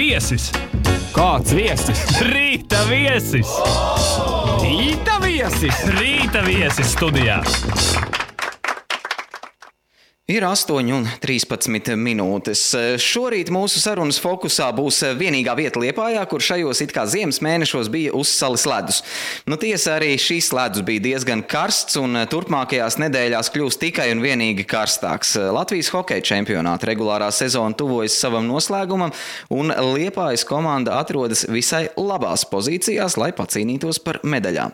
Viesis! Kāds viesis? Rīta viesis! Rīta viesis! Rīta viesis studijā! Ir 8:13 minūtes. Šorīt mūsu sarunas fokusā būs vienīgā vieta Liepājā, kur šajos it kā ziemas mēnešos bija uzsalis ledus. Tiesa arī šis ledus bija diezgan karsts un turpmākajās nedēļās kļūs tikai un vienīgi karstāks. Latvijas hokeja čempionāta regulārā sezona tuvojas savam noslēgumam un Liepājas komanda atrodas visai labās pozīcijās, lai pacīnītos par medaļām.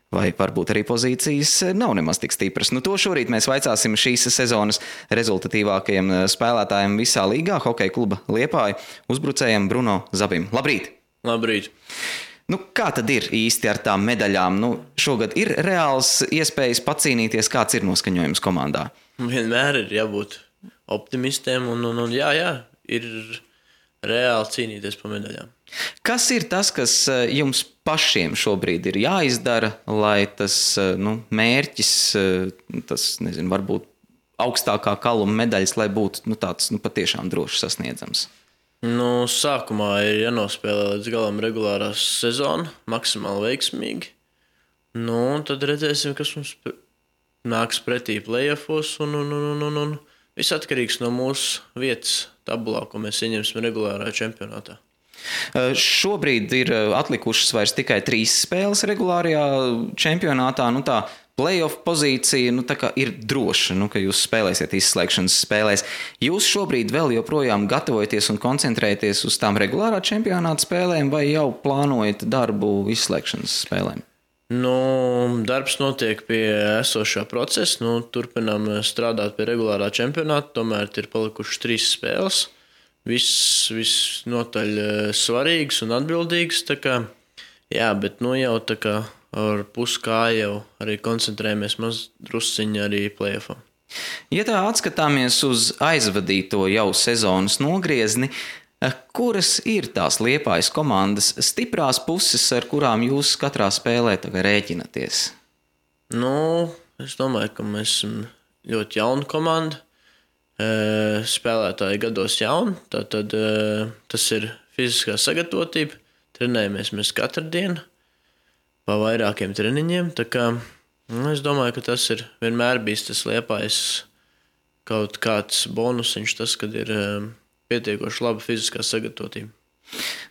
Vai varbūt arī pozīcijas nav nemaz tik stipras. To šorīt mēs vaicāsim šīs sezonas rezultatīvākajiem spēlētājiem visā līgā, hokeja kluba Liepāja uzbrucējiem Bruno Zabim. Labrīt! Labrīt! Kā tad ir īsti ar tām medaļām? Šogad ir reāls iespējas pacīnīties, kāds ir noskaņojums komandā? Vienmēr ir jābūt optimistiem un jā, ir reāli cīnīties par medaļām. Kas ir tas, kas jums pašiem šobrīd ir jāizdara, lai tas mērķis, varbūt augstākā kaluma medaļas, lai būtu tāds patiešām droši sasniedzams? Sākumā ir jānospēlē līdz galam regulārā sezona, maksimāli veiksmīgi. Tad redzēsim, kas mums nāks pretī play-offos un viss atkarīgs no mūsu vietas tabulā, ko mēs ieņemsim regulārā čempionātā. Šobrīd ir atlikušas vairs tikai 3 spēles regulārajā čempionātā. Tā play-off pozīcija ir droša, ka jūs spēlēsiet izslēgšanas spēlēs. Jūs šobrīd vēl joprojām gatavojaties un koncentrēties uz tām regulārā čempionāta spēlēm vai jau plānojat darbu izslēgšanas spēlēm? Darbs notiek pie esošā procesa. Turpinām strādāt pie regulārā čempionāta, tomēr ir palikušas 3 spēles. Viss notaļ svarīgs un atbildīgs. Bet jau ar puskāju jau arī koncentrējamies drusciņi arī play-offam. Ja tā atskatāmies uz aizvadīto jau sezonas nogriezni, kuras ir tās Liepājas komandas stiprās puses, ar kurām jūs katrā spēlē rēķinaties? Es domāju, ka mēs esam ļoti jauna komanda. Spēlētāji gados jauni, tad tas ir fiziskā sagatavotība. Trenējamies mēs katru dienu pa vairākiem treniņiem. Es domāju, ka tas ir vienmēr bijis tas Liepājas kaut kāds bonusiņš, tas, kad ir pietiekoši laba fiziskā sagatavotība.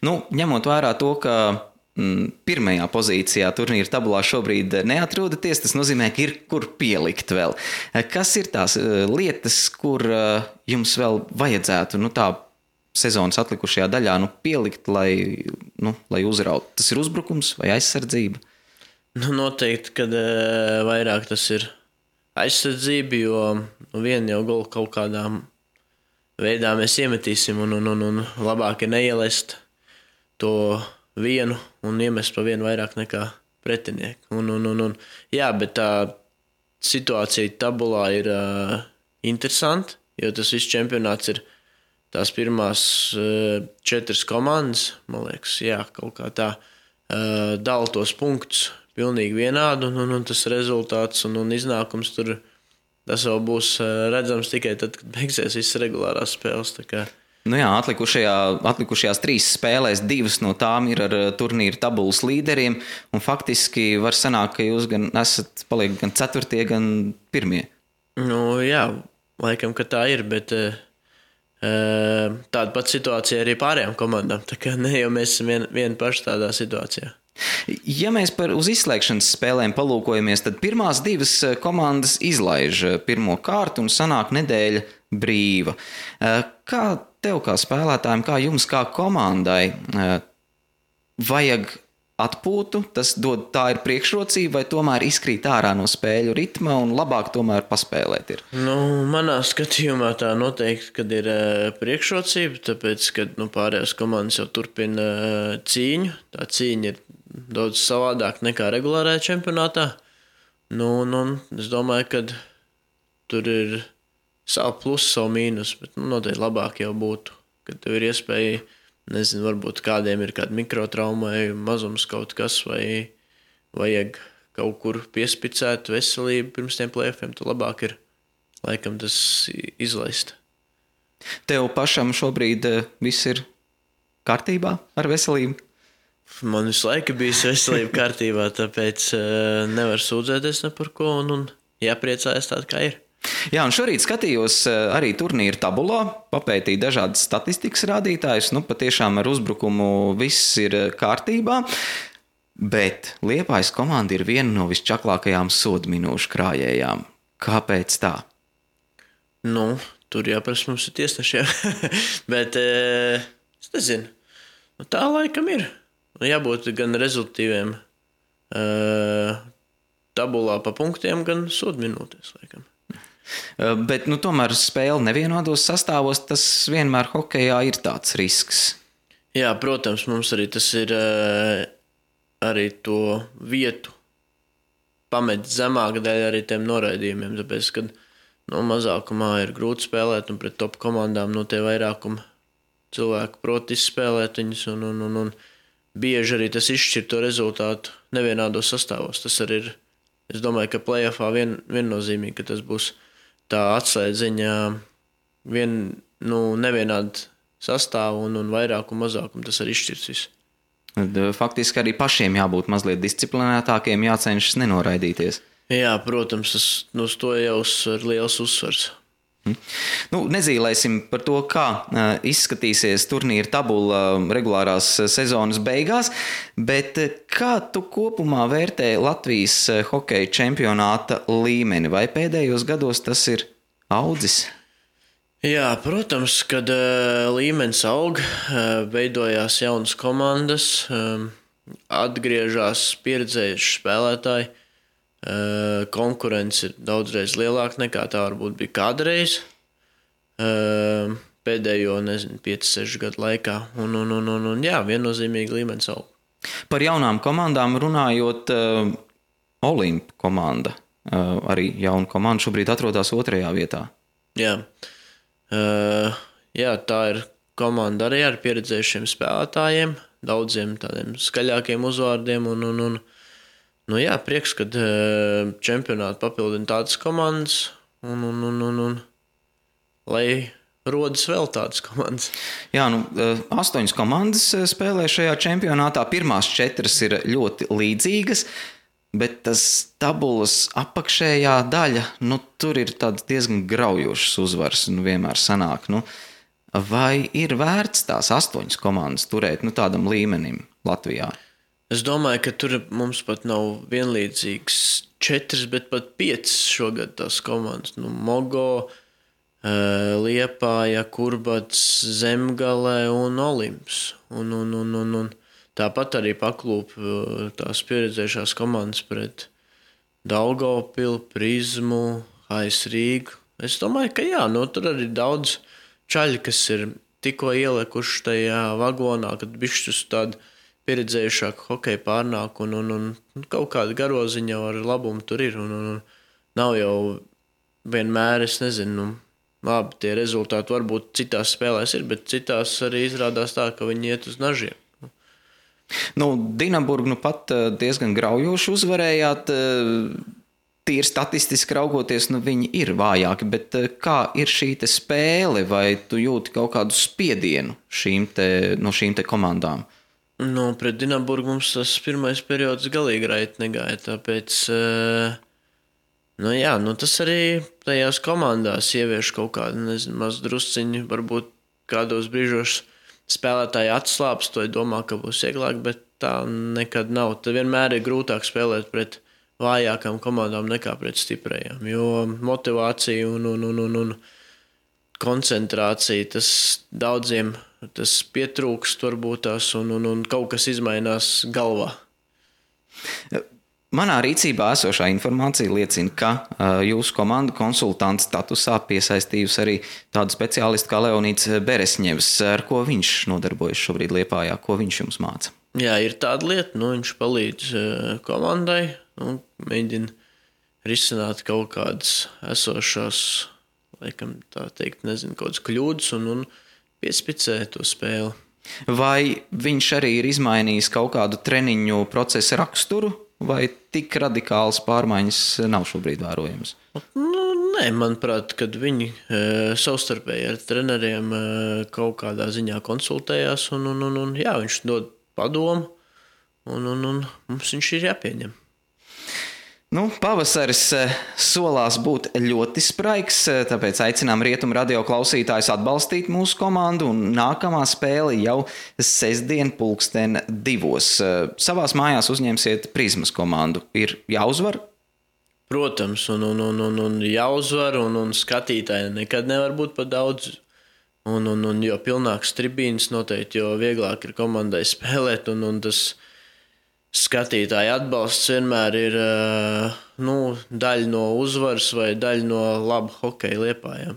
Ņemot vērā to, ka pirmajā pozīcijā turnīra tabulā šobrīd neatrodaties, tas nozīmē, ka ir kur pielikt vēl. Kas ir tās lietas, kur jums vēl vajadzētu tā sezonas atlikušajā daļā pielikt, lai uzrautu? Tas ir uzbrukums vai aizsardzība? Noteikti, kad vairāk tas ir aizsardzība, jo vienu jau golu kaut kādā veidā mēs iemetīsim un labāk ir neielest to vienu un iemest pa vienu vairāk nekā pretinieku. Jā, bet tā situācija tabulā ir interesanta, jo tas viss čempionāts ir tās pirmās 4 komandas, man liekas, kaut kā tā dala tos punktus pilnīgi vienādi, un tas rezultāts un iznākums tur, tas vēl būs redzams tikai tad, kad beigsies visas regulārās spēles. Atlikušajās 3 spēlēs 2 no tām ir ar turnīra tabulas līderiem, un faktiski var sanākt, ka jūs gan paliek gan 4., gan 1. Jā, laikam, ka tā ir, bet tāda pat situācija arī pārējām komandām. Ne jau mēs esam vieni paši tādā situācijā. Ja mēs uz izslēgšanas spēlēm palūkojamies, tad pirmās 2 komandas izlaiž pirmo kārtu un sanāk nedēļa brīva. Kā tev kā spēlētājiem, kā jums kā komandai vajag atpūtu? Tā ir priekšrocība vai tomēr izkrīt ārā no spēļu ritma un labāk tomēr paspēlēt ir? Manā skatījumā tā noteikti, kad ir priekšrocība, tāpēc, kad pārējās komandas jau turpina cīņu. Tā cīņa ir daudz savādāk nekā regulārajā čempionātā. Es domāju, ka tur ir savu plusu, savu mīnus, bet noteikti labāk jau būtu, kad tev ir iespēja, varbūt kādiem ir kāda mikrotrauma vai mazums kaut kas, vai vajag kaut kur piespicēt veselību pirms tiem play-offiem, tad labāk ir laikam tas izlaist. Tev pašam šobrīd viss ir kārtībā ar veselību? Man visu laiku bijis veselība kārtībā, tāpēc nevar sūdzēties ne par ko un jāpriecājas tāda, kā ir. Jā, un šorīt skatījos arī turnīra tabulā, papētīju dažādas statistikas rādītājus. Patiešām ar uzbrukumu viss ir kārtībā, bet Liepājas komanda ir viena no visčaklākajām sodu minūšu krājējām. Kāpēc tā? Tur jāprasa mums ir tiesnešiem, bet es nezinu, tā laikam ir. Jābūt gan rezultīviem tabulā pa punktiem, gan sodu minūtēs, laikam. Bet tomēr spēle nevienodos sastāvos, tas vienmēr hokejā ir tāds risks. Jā, protams, mums arī tas ir arī to vietu pamet zemāk dēļ arī tiem noraidījumiem, tāpēc, kad mazākumā ir grūti spēlēt un pret top komandām tie vairākumi cilvēku prot izspēlēt viņus un bieži arī tas izšķir to rezultātu nevienādos sastāvos. Tas arī ir, es domāju, ka play-offā viennozīmīgi, ka tas būs tā atslēdziņa nevienādi sastāvu un vairākumu mazākumu, tas arī izšķirs visu. Faktiski arī pašiem jābūt mazliet disciplinētākiem, jācenšas nenoraidīties. Jā, protams, uz to jau ir liels uzsvars. Nezīlēsim par to, kā izskatīsies turnīra tabula regulārās sezonas beigās, bet kā tu kopumā vērtē Latvijas hokeja čempionāta līmeni? Vai pēdējos gados tas ir audzis? Jā, protams, kad līmenis aug, veidojās jaunas komandas, atgriežas pieredzējuši spēlētāji, konkurence ir daudzreiz lielāka nekā tā varbūt bija kādreiz pēdējo, 5-6 gadu laikā. Jā, viennozīmīgi līmenis aug. Par jaunām komandām runājot, Olimp komanda, arī jauna komanda šobrīd atrodas 2. vietā. Jā, tā ir komanda arī ar pieredzējušiem spēlētājiem, daudziem tādiem skaļākiem uzvārdiem jā, prieks, kad čempionātu papildina tādas komandas un lai rodas vēl tādas komandas. Jā, 8 komandas spēlē šajā čempionātā. Pirmās 4 ir ļoti līdzīgas, bet tas tabulas apakšējā daļa, tur ir tāds diezgan graujošs uzvars, vienmēr sanāk. Vai ir vērts tās 8 komandas turēt tādam līmenim Latvijā? Es domāju, ka tur mums pat nav vienlīdzīgas 4, bet pat 5 šogad tās komandas. Mogo, Liepāja, Kurbats, Zemgale un Olimps. Un tāpat arī paklūp tās pieredzējušās komandas pret Daugavpilu, Prizmu, HS Rīgu. Es domāju, ka jā, tur arī daudz čaļi, kas ir tikko ielikuši tajā vagonā, kad bišķus tādu pieredzējušāku hokeju pārnāk un kaut kāda garoziņa ar labumu tur ir. Un nav jau vienmēr, es nezinu, labi, tie rezultāti varbūt citās spēlēs ir, bet citās arī izrādās tā, ka viņi iet uz nažiem. Dinaburgu pat diezgan graujoši uzvarējāt. Tīri statistiski raugoties, viņi ir vājāki, bet kā ir šī te spēle, vai tu jūti kaut kādu spiedienu no šīm te komandām? Pret Dinaburgu mums tas pirmais periods galīgi raiti negāja, tāpēc, tas arī tajās komandās ievieš kaut kādu, maz drusciņu, varbūt kādos brīžos spēlētāji atslāps, to domā, ka būs vieglāk, bet tā nekad nav. Tad vienmēr ir grūtāk spēlēt pret vājākām komandām nekā pret stiprajām, jo motivācija un koncentrācija, tas daudziem tas pietrūkst varbūt tās un kaut kas izmainās galvā. Manā rīcībā esošā informācija liecina, ka jūsu komanda konsultanta statusā piesaistījusi arī tādu speciālistu kā Leonīds Beresņevs. Ar ko viņš nodarbojas šobrīd Liepājā? Ko viņš jums māca? Jā, ir tāda lieta, viņš palīdz komandai un mēģina risināt kaut kādas esošās, laikam tā teikt, kaut kādas kļūdas un piespicē to spēli. Vai viņš arī ir izmainījis kaut kādu treniņu procesa raksturu, vai tik radikāls pārmaiņas nav šobrīd vērojams? Nē, manuprāt, kad viņi savstarpēji ar treneriem kaut kādā ziņā konsultējās, un jā, viņš dod padomu, un mums viņš ir jāpieņem. Nu, pavasaris solās būt ļoti spraigs, tāpēc aicinām Rietumu radio klausītājus atbalstīt mūsu komandu, un nākamā spēle jau sestdien 2:00. Savās mājās uzņemsiet Prizmas komandu. Ir jāuzvar? Protams, un jāuzvar, un skatītāji nekad nevar būt par daudz. Un jo pilnāks tribīnas noteikti, jo vieglāk ir komandai spēlēt, un tas skatītāju atbalsts vienmēr ir daļa no uzvaras vai daļa no laba hokeja Liepājā.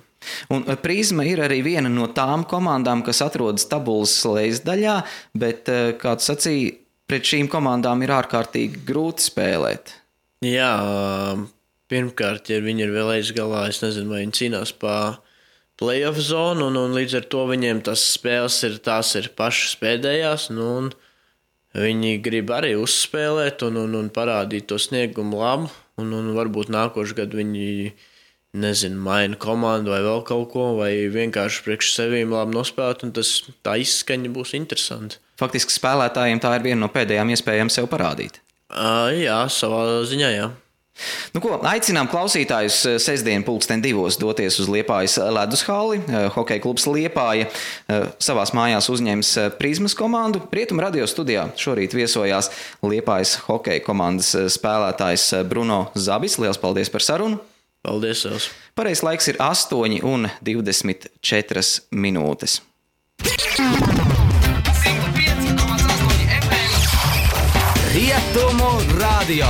Un Prizma ir arī viena no tām komandām, kas atrodas tabulas lejasdaļā, bet, kā tu sacīji, pret šīm komandām ir ārkārtīgi grūti spēlēt. Jā, pirmkārt, ja viņi ir vēl aizgalā, es nezinu, vai viņi cīnās pa play-off zonu, un līdz ar to viņiem tas spēles tās ir pašas pēdējās, un viņi grib arī uzspēlēt un parādīt to sniegumu labu, un varbūt nākošu gadu viņi, maina komandu vai vēl kaut ko, vai vienkārši priekš sevīm labi nospēlēt, un tā izskaņa būs interesanti. Faktiski spēlētājiem tā ir viena no pēdējām iespējām sev parādīt. Jā, savā ziņā, jā. Nu ko, aicinām klausītājus sestdien 2:00 doties uz Liepājas ledus halli. Hokeja klubs Liepāja savās mājās uzņems Prizmas komandu. Rietumu radio studijā šorīt viesojās Liepājas hokeja komandas spēlētājs Bruno Zabis. Liels paldies par sarunu! Paldies,Els! Pareizais laiks ir 8:24. Rietumu radio.